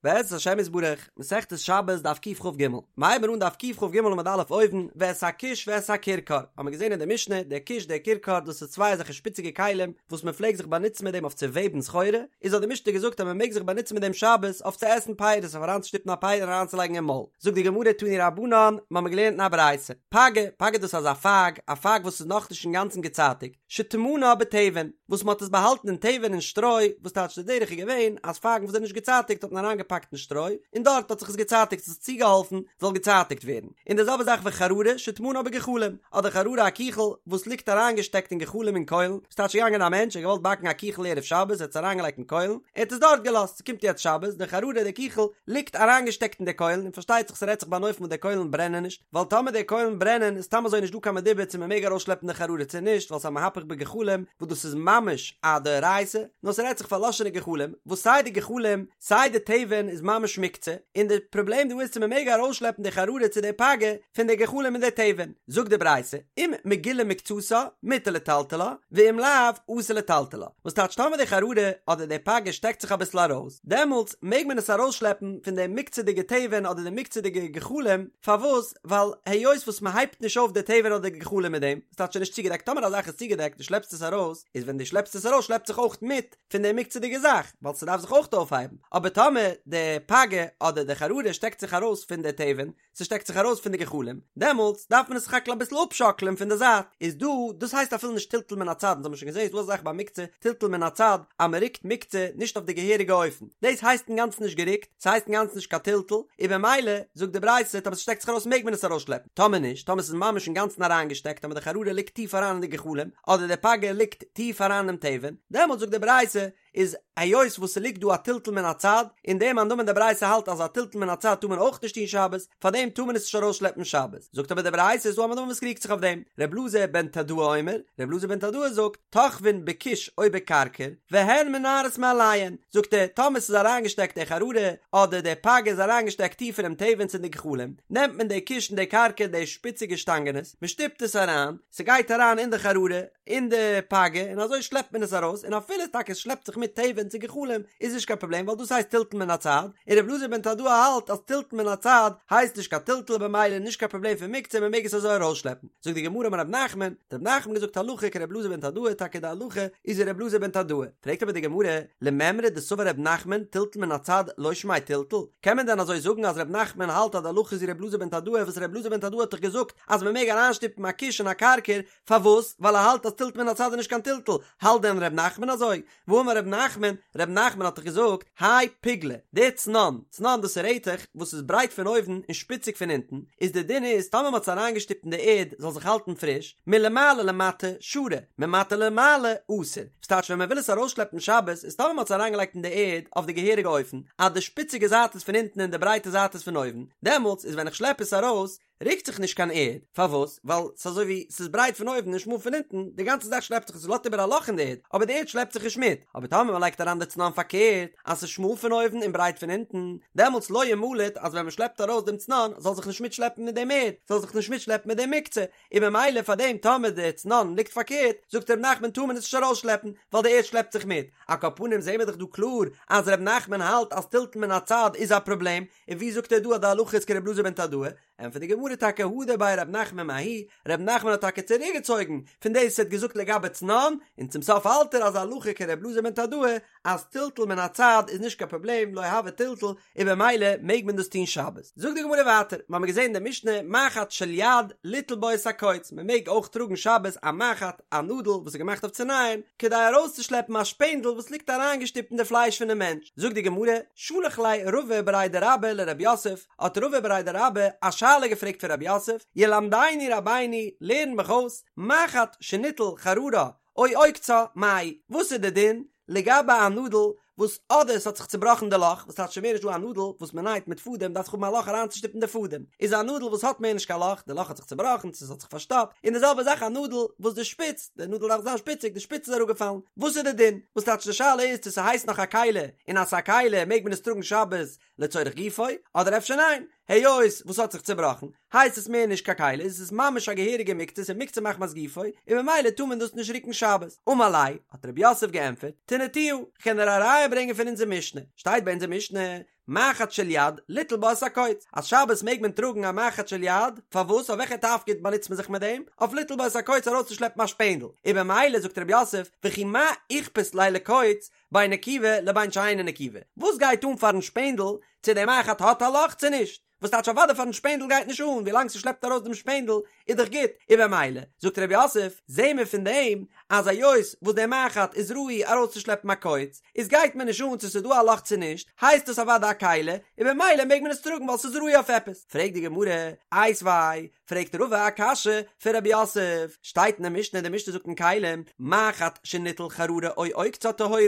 בעזרת השם יתברך, מסכת שבת דף קכ"ג, מ'הייבן אן דף קכ"ג עמוד א' אויבן, ואת הכוש ואת הכרכר, האבן מיר געזען אין די משנה, דער כוש דער כרכר דאס איז צוויי אזעלכע שפיציגע כלים וואס מען פלעגט זיך באנוצן מיט דעם אויף צו וועבן סחורה, איז האט די משנה געזאגט אז מען מעג זיך באנוצן מיט דעם שבת אויף צו עסן פירות אויף אריינצושטופן א פרי און אריינצולייגן אין מויל. זאגט די גמרא תנו רבנן, מ'האמיר געלערנט אין א ברייתא, פגה, פגה דאס איז אזא פייג, א פייג וואס איז נאכנישט אינגאנצן געצייטיגט, שטמנה בתבן, וואס מ'האט עס באהאלטן אין תבן אין שטרוי, וואס טייטש די דרך איז געווען אז פייגן וואס זענען נישט געצייטיגט האט מען אריינגעפאקט אין שטרוי, און דארט האט זיך עס געצייטיגט, עס האט צוגעהאלפן זאל געצייטיגט ווערן. און די זעלבע זאך וחררה שטמנה בגחלים, אדער חררה א קיכל וואס ליגט אריינגעשטעקט אין גחלים אין קוילן, וואס טייטש געגאנגען א מענטש ער האט געוואלט באקן א קיכל ערב שבת ער האט עס אריינגעלייגט אין קוילן, ער האט עס דארט געלאזט, ס'קומט יעצט שבת, די חררה די קיכל ליגט אריינגעשטעקט אין די קוילן, און פארשטייט זיך ס'רעדט זיך ביי אן אופן וואס די קוילן ברענען נישט, ווייל טאמער די קוילן ברענען איז סתם אזוי נישט דא קיין מדובר צו מ'מעג ארויסשלעפן די חררה צו נישט ווייל ס'איז א מהפך בגחלים וואס דאס איז ממש א דאורייתא, נאר ס'רעדט זיך פארלאשענע גחלים וואס סיי די גחלים סיי די תבן איז ממש מוקצה, און די פראבלעם דא איז צו מ'מעג ארויסשלעפן די חררה צו די פגה פון די גחלים און די תבן, זאגט די ברייתא, אם מגולה מקצתה מותר לטלטלה, ואם לאו אסור לטלטלה, וואס טייטש טאמער די חררה אדער די פגה שטעקט זיך אביסל ארויס, דעמאלטס מעג מען עס ארויסשלעפן פון די מוקצה'דיגע תבן אדער די מוקצה'דיגע גחלים, פארוואס? ווייל היות וואס מען הייבט נישט אויף די תבן אדער די גחלים מיט דעם, ס'טייטש ס'איז נישט צוגעדעקט, טאמער א זאך איז צוגעדעקט דו שלעפסט עס ארויס, איז ווען דו שלעפסט עס ארויס שלעפט זיך אויך מיט פון די מוקצה'דיגע זאך, ווייל ס'דארף זיך אויך אויפהייבן, אבער טאמער די פגה אדער די חררה שטעקט זיך ארויס פון די תבן, ס'שטעקט זיך ארויס פון די גחלים, דעמאלטס דארף מען עס סך הכל אביסל אפשאקלען פון די זייט, איז דא, דאס הייסט אפילו נישט טלטול מן הצד, אונז האבן שוין געזען איז דא אזא זאך ביי מוקצה, טלטול מן הצד, אז מען רוקט מוקצה נישט אויף די געהעריגע אופן, דאס הייסט אינגאנצן נישט גערוקט, ס'הייסט אינגאנצן נישט קיין טלטול, און במילא, זאגט די ברייתא, טאמער ס'שטעקט זיך ארויס מעג מען עס ארויסשלעפן, טאמער נישט, טאמער ס'איז ממש אינגאנצן אריינגעשטעקט, טאמער די חררה ליגט טיף אריין אין די גחלים, אדער די פגה ליגט טיף אריין אינעם תבן, דעמאלטס זאגט די ברייתא, איז היות וואס ס'ליגט דא א טלטול מן הצד, און דער מאן דאמר אין די ברייתא האלט אז א טלטול מן הצד טאר מען אויך נישט טון שבת, פארדעם טאר מען עס נישט ארויסשלעפן שבת. זאגט אבער די ברייתא איז דא א מאן דאמר וואס קריגט זיך אויף דעם, ר' אלעזר בן תדאי אומר, ר' אלעזר בן תדאי זאגט, תוחבין בכוש או בכרכר, והן מנערות מאליהן, זאגט ער, טאמער ס'איז אריינגעשטעקט די חררה, אדער די פגה איז אריינגעשטעקט טיף אינעם תבן צו אין די גחלים, נעמט מען די כוש און די כרכר די שפיציגע שטאנגענעס, מ'שטופט עס אריין, ס'גייט אריין אין די חררה, אין די פגה און אזוי שלעפט מען עס ארויס און אפילו טאקע עס שלעפט זיך מיט תבן צו גחלים איז נישט קיין פראבלעם ווייל דאס הייסט טלטול מן הצד און ר' אלעזר בן תדאי האלט אז טלטול מן הצד הייסט נישט קיין טלטול במילא נישט קיין פראבלעם פון מוקצה מען מעג עס אזוי ארויסשלעפן זאגט די גמרא אמר רב נחמן האט רב נחמן געזאגט הלכה כר' אלעזר בן תדאי טאקע די הלכה איז ווי ר' אלעזר בן תדאי פרעגט אבער די גמרא למימרא דסבר רב נחמן טלטול מן הצד לא שמיה טלטול קען מען דען אזוי זאגן אז רב נחמן האלט אז די הלכה איז ווי ר' אלעזר בן תדאי וואס ר' אלעזר בן תדאי האט דאך געזאגט אז מען מעג אריינשטופן א כוש און א כרכר פארוואס? ווייל ער האלט אז טלטול מן הצד איז נישט קיין טלטול, האלט דען ר' נחמן אזוי? והאמר ר' נחמן, ר' נחמן האט דאך געזאגט, האי פוגלא, די צנון, צנון דאס איז רעטעך וואס איז ברייט פון אויבן און שפיציג פון אונטן, איז די דין איז טאמער מ'האט עס אריינגעשטופט אין די ערד זאל זיך האלטן פריש, מלמעלה למטה שרי, ממטה למעלה אסור, ס'טייטש ווען מ'וויל עס ארויסשלעפן שבת איז טאמער מ'האט עס אריינגעלייגט אין די ערד אויף די געהעריגע אופן, אז די שפיציגע זייט איז פון אונטן און די ברייטע זייט איז פון אויבן, דעמאלטס איז ווען איך שלעפ עס ארויס, רוקט זיך נישט קיין ערד, פארוואס? ווייל ס'איז אזוי ווי ס'איז ברייט פון אויבן און שמאל פון אונטן, די גאנצע זאך שלעפט זיך און ס'לאזט איבער א לאך אין די ערד, אבער די ערד שלעפט זיך נישט מיט, אבער טאמער מ'לייגט אריין די צנון פארקערט, אז ס'איז שמאל פון אויבן און ברייט פון אונטן, דעמאלטס לא ימלט אז ווען מ'שלעפט ארויס דעם צנון זאל זיך נישט מיטשלעפן מיט דעם ערד, זאל זיך נישט מיטשלעפן מיט דעם מוקצה, און ממילא פאר דעם טאמער די צנון ליגט פארקערט, זאגט ר' נחמן טאר מען עס נישט ארויסשלעפן, ווייל די ערד שלעפט זיך מיט. על כל פנים זעהן מיר דאך דא קלאר אז ר' נחמן האלט אז טלטול מן הצד איז א פראבלעם, און ווי זאגט ער דא אז די הלכה איז כר' אלעזר בן תדאי? ענטפערט די גמרא טאקע הדר ביה ר' נחמן מההיא, ר' נחמן האט טאקע צוריקגעצויגן פון דאס וואס ער האט געזאגט לגבי צנון, און צום סוף האלט ער אז הלכה כר' אלעזר בן תדאי אז טלטול מן הצד איז נישט קיין פראבלעם לא הוי טלטול און במילא מעג מען דאס טון שבת. זאגט די גמרא ווייטער, מ'האמיר געזען אין די משנה מחט של יד ליטול בו את הקוץ, מ'מעג אויך טראגן שבת א מחט, א נאדל וואס איז געמאכט אויף צו נייען, כדי ארויסצושלעפן א שפענדל וואס ליגט אריינגעשטופט אין די פלייש פונעם מענטש. זאגט די גמרא, שלח ליה רבא בריה דרבה לרב יוסף, האט רבא בריה דרבה א שאלה געפרעגט פון רב יוסף, ילמדנו רבינו, לערן מיך אויס, מחט שניטל חררה או עוקצה, מהו, וואס איז די דין לגבי א נאדל וואס אדער ס'האט זיך צובראכן די לאך, וואס טייטש ס'מער נישט דא א נאדל וואס מ'נייט מיט פאדעם דארף זיך האבן א לאך אריינצושטופן די פאדעם, איז א נאדל וואס האט מער נישט קיין לאך, די לאך האט זיך צובראכן צו ס'האט זיך פארשטאפט, און די זעלבע זאך א נאדל וואס די שפיץ, די נאדל דארף זיין שפיציג, די שפיץ איז אראפגעפאלן, וואס איז די דין? וואס טייטש די שאלה איז צו ס'הייסט נאך א כלי, און אז ס'איז א כלי מעג מען עס טראגן שבת לצורך גופו, אדער אפשר ניין, היות וואס האט זיך צובראכן, הייסט עס מער נישט קיין כלי, איז עס ממש א געהעריגע מוקצה, ס'איז מוקצה מחמת גופו, און ממילא טאר מען דאס נישט רוקן שבת. אמר ליה, האט רב יוסף געענטפערט, תניתוה, כ'קען דיר א ראיה ברענגען פון אונזער משנה, שטייט ביי אונזער משנה, מחט של יד, ליטול בה את הקוץ, אז שבת מעג מען טראגן א מחט של יד, פארוואס? אויף וועלכע תפקיד באנוצט מען זיך מיט דעם? אויף ליטול בה את הקוץ ארויסצושלעפן א שפענדל, און במילא זאגט רב יוסף, וכי מה איכפת ליה לקוץ, בין נקובה לבין שאינה נקובה, וואס גייט אן פארן שפענדל צו דער מחט האט א לאך צו נישט? וואס טייטש אוודאי פארן שפענדל גייט נישט אן, ווילאנג ס'שלעפט ארויס דעם שפענדל איז דאך גוט, און במילא, זאגט רב יוסף, זעהן מיר פון דעם אז היות וואס דער מחט איז ראוי ארויסצושלעפן א קוץ, איז גייט מיר נישט אן צו ס'איז דא א לאך צו נישט, הייסט עס אוודאי א כלי, און במילא מעג מען עס טראגן ווייל ס'איז ראוי אויף עפעס. פרעגט די גמרא, איתיביה, פרעגט רבא א קשיא פון רב יוסף, שטייט אין די משנה, די משנה זאגט אין כלים, מחט שניטל חררה או עוקצה טהורה,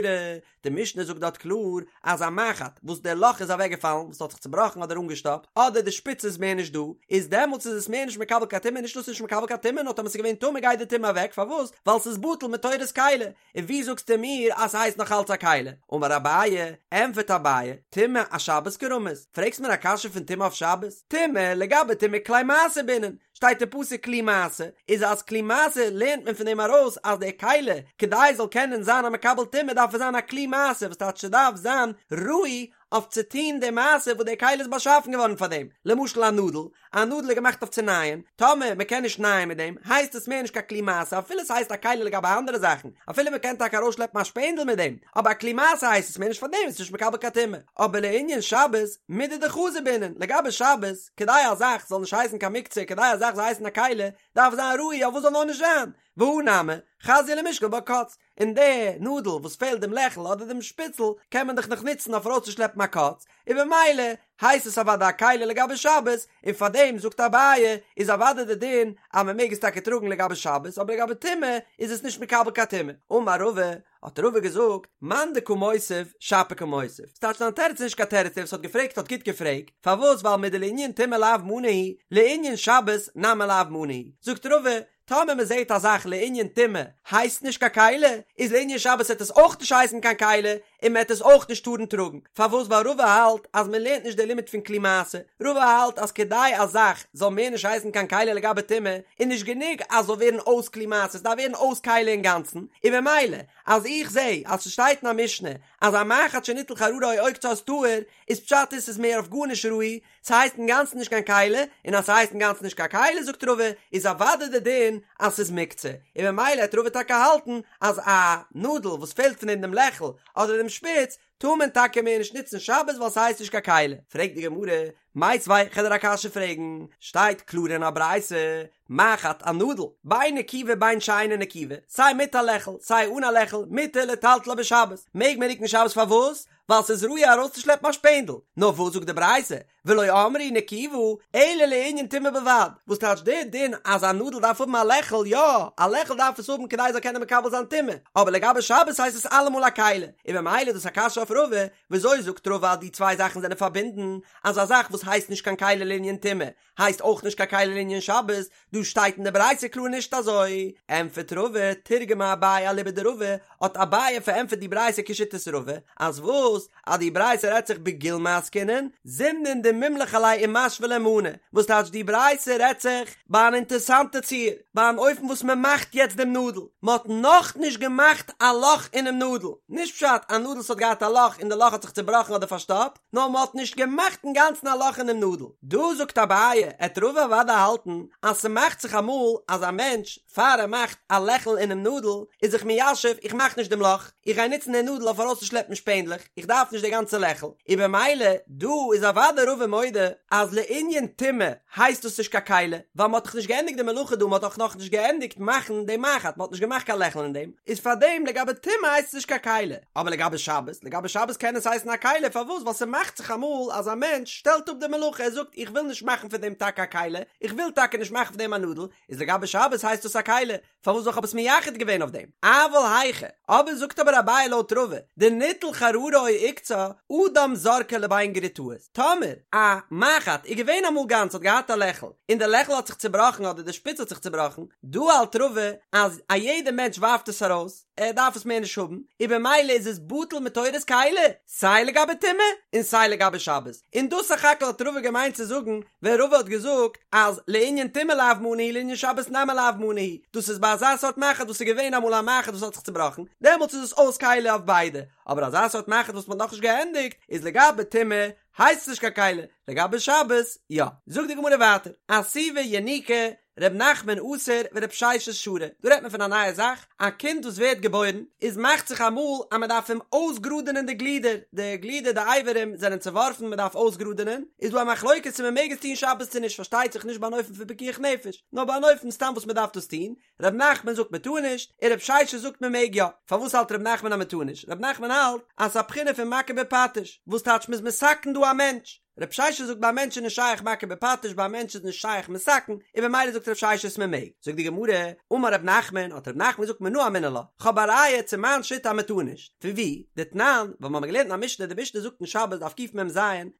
די משנה זאגט דארט קלאר אז א מחט וואס דער לאך איז אוועקגעפאלן, וואס האט זיך צובראכן אדער אנגעשטאפט, אדער די שפיץ איז מער נישט דא, איז דעמאלטס איז עס מער נישט מקבל קיין טומאה, נישט נאר ס'איז נישט מקבל קיין טומאה, נאר טאמער ס'איז געווען טמא גייט די טומאה אוועק, פארוואס? ווייל ס'איז בטל מתורת כלי, און ווי זאגסטו מיר אז ס'הייסט נאך אלץ א כלי? אמר אביי, ענפערט אביי, טומאה אשבת קרמית, פרעגסט מיר א קשיא פון טומאה אויף שבת? טומאה, לגבי טומאה כלי מעשה בעינן, שטייט אין פסוק כלי מעשה, איז אז כלי מעשה לערנט מען פון דעם ארויס אז דער כלי, כדי עס זאל קענען זיין א מקבל טומאה דארף עס זיין א כלי מעשה וואס טייטש ס'דארף זיין ראוי אויף צו טון די מעשה וואס דער כלי איז באשאפן געווארן פאר דעם, למשל א נאדל, א נאדל איז געמאכט אויף צו נייען, טאמער מען קען נישט נייען מיט דעם, הייסט עס מער נישט קיין כלי מעשה, אפילו עס הייסט א כלי לגבי אנדערע זאכן, אפילו מען קען טאקע ארויסשלעפן א שפענדל מיט דעם, אבער א כלי מעשה הייסט עס מער נישט פאר דעם, עס איז נישט מקבל קיין טומאה. אבער לענין שבת, מידי דחזי בעינן, לגבי שבת, כדי א זאך זאל נישט הייסן קיין מוקצה, כדי א זאך זאל הייסן א כלי, דארף זיין ראוי אויף וואס זאל נאר נישט זיין, והא נמי, חזיא למישקל בה קוץ, און די נאדל וואס פעלט דעם לעכל אדער דעם שפיצל קען מען דאך נאך נוצן אויף ארויסצושלעפן א קוץ, און במילא הייסט עס אוודאי א כלי לגבי שבת, און פאר דעם זאגט אביי איז אוודאי די דין אז מען מעג עס טאקע טראגן לגבי שבת אבער לגבי טומאה איז עס נישט מקבל קיין טומאה. אמר רבא, האט רבא געזאגט, מאן דקא מותיב, שפיר קא מותיב. ס'טייטש דיין תירוץ איז נישט קיין תירוץ, דער וואס האט געפרעגט האט גוט געפרעגט, פארוואס ווייל מדלענין טומאה לאו מנא הוא, לענין שבת נמי לאו מנא הוא. זאגט רבא, טאמער מען זעט א זאך לענין טומאה הייסט נישט קיין כלי, איז לענין שבת וועט עס אויך נישט הייסן קיין כלי, און מען וועט עס אויך נישט טארן טראגן. פארוואס? ווייל רבא האלט אז מען לערנט נישט די לימוד פון כלי מעשה, רבא האלט אז כדי א זאך זאל מער נישט הייסן קיין כלי לגבי טומאה, איז נישט גענוג אז זאל ווערן אויס כלי מעשה, עס דארף ווערן אויס כלי אינגאנצן, און במילא אז איך זע אז ס'שטייט אין א משנה אז א מחט שניטל חררה או עוקצה איז טהור, איז פשט איז ס'איז מער אויף גארנישט ראוי, ס'הייסט אינגאנצן נישט קיין כלי, און אז ס'הייסט אינגאנצן נישט קיין כלי זאגט רבא איז אוודאי די דין אז ס'איז מוקצה, און במילא העט רבא טאקע האלטן אז א נאדל וואס פעלט פון דעם דעם לעכל אדער דעם שפיץ טאר מען טאקע מער נישט נוצן שבת ווייל ס'הייסט נישט קיין כלי. פרעגט די גמרא, מיתיבי כ'על דיר א קשיא פרעגן, שטייט קלאר אין א ברייתא, מחט א נאדל, בין נקובה בין שאינה נקובה, סיי מיט א לעכל סיי אן א לעכל, מותר לטלטלה בשבת, מעג מען רוקן שבת פארוואס? ווייל ס'איז ראוי ארויסצושלעפן א שפענדל. נאר וואס זאגט די ברייתא, ולא אמרו נקובה, אלא לענין טומאה בלבד, וואס טייטש דער דין אז א נאדל דארף האבן א לעכל, יא, א לעכל דארף עס האבן כדי עס זאל קענען מקבל זיין טומאה, אבער לגבי שבת הייסט עס אלעמאל א כלי, און ממילא איז דאס א קשיא אויף רבא, וויאזוי זאגט רבא אז די צוויי זאכן זענען פארבינדן, אז א זאך וואס הייסט נישט קיין כלי לענין טומאה, הייסט אויך נישט קיין כלי לענין שבת, דא שטייט אין די ברייתא קלאר נישט אזוי. ענטפערט רבא, תרגמה אביי אליבא דרבא, האט אביי פארענטפערט די ברייתא כשיטת רבא, אז וואס? אז די ברייתא רעדט זיך בגולמי עסקינן, זימנין דמימלך עליה ומשוי ליה מנא, וואס טייטש די ברייתא רעדט זיך ביי אן אינטערסאנטע ציור, ביי אן אופן וואס מען מאכט יעצט דעם נאדל, מען האט נאכנישט געמאכט א לאך אינעם נאדל, נישט פשט א נאדל וואס האט געהאט א לאך און די לאך האט זיך צובראכן אדער פארשטאפט, נאר מען האט נישט געמאכט אינגאנצן א לאך אינעם נאדל. דא זאגט אביי, עט רבא אוודאי האלטן אז ס'מאכט זיך אמאל אז א מענטש פאר ער מאכט א לעכל אינעם נאדל איז זיך מיישב איך מאך נישט דעם לאך, איך גיי נוצן די נאדל אויף ארויסצושלעפן שפענדלעך, איך דארף נישט די גאנצע לעכל, און במילא דא איז אוודאי רבא מודה אז לענין טומאה הייסט דאס נישט קיין כלי, ווייל מ'האט דאך נישט געענדיגט די מלאכה דא, מ'האט דאך נאכנישט געענדיגט מאכן די מחט, מ'האט נישט געמאכט קיין לעכל אין דעם, איז פארדעם לגבי טומאה הייסט עס נישט קיין כלי, אבער לגבי שבת, לגבי שבת קען עס הייסן א כלי, פארוואס? ווייל ס'מאכט זיך אמאל אז א מענטש שטעלט אפ די מלאכה, ער זאגט איך וויל נישט מאכן פון דעם טאקע א כלי, איך וויל טאקע נישט מאכן פון דעם א נאדל, איז לגבי שבת הייסט דאס א כלי, פארוואס ווייל כ'האב עס מייחד געווען אויף דעם? אבל היכא, אבער זאגט אבער אביי לויט רבא, דניטל חררה או עוקצה, אדם זורקה לבין גרוטאות, טאמער א מחט איז געווען אמאל גאנץ האט געהאט א לעכל, און די לעכל האט זיך צובראכן אדער די שפיץ האט זיך צובראכן, דא האלט רבא אז א יעדע מענטש ווארפט עס ארויס, ער דארף עס מער נישט האבן, און במילא איז עס בטל מתורת כלי, סיי לגבי טומאה און סיי לגבי שבת, און דאס סך הכל האט רבא געמיינט צו זאגן ווען רבא האט געזאגט אז לענין טומאה לאו מנא הוא לענין שבת נמי לאו מנא הוא, דאס איז ביי אזא סארט מחט וואס איז געווען אמאל א מחט וואס האט זיך צובראכן, דעמאלטס איז עס אויס כלי אויף ביידע, אבער אזא סארט מחט וואס מען האט נאכנישט געענדיגט, איז לגבי טומאה. הייסט עס נישט קיין כלי, לגבי שבת יא. זאגט די גמרא ווייטער, אסיבא יניקא, ר' נחמן אסר ור' ששת שרי, דא רעדט מען פון א נייע זאך, א קינד וואס ווערט געבוירן, איז מאכט זיך אמאל אז מען דארף אים אויסגראדענען די גלידער, די גלידער די אברים זענען צעווארפן מען דארף אויסגראדענען, איז דא א מחלוקת צו מען מעג עס טון שבת צו נישט, פארשטייט זיך נישט ביי אן אופן פון פיקוח נפש, נאר ביי אן אופן סתם וואס מען דארף דאס טון, ר' נחמן זאגט מען טאר נישט, און ר' ששת זאגט מען מעג יא. פארוואס האלט ר' נחמן אז מען טאר נישט? ר' נחמן האלט אז ס'איז א בחינה פון מכה בפטיש, וואס טייטש מ'איז מתקן דא א מענטש. ר' ששת זאגט ביי א מענטש איז נישט שייך מכה בפטיש ביי א מענטש איז נישט שייך מתקן, און במילא זאגט ר' ששת מען מעג. זאגט די גמרא, אמר ר' נחמן, האט ר' נחמן געזאגט מנא אמינא לה, כ'האב א ראיה צו מיין שיטה אז מען טאר נישט. פון וואו? דתנן, ווייל מ'האמיר געלערנט אין א משנה, די משנה זאגט אין שבת דף קמ"ז,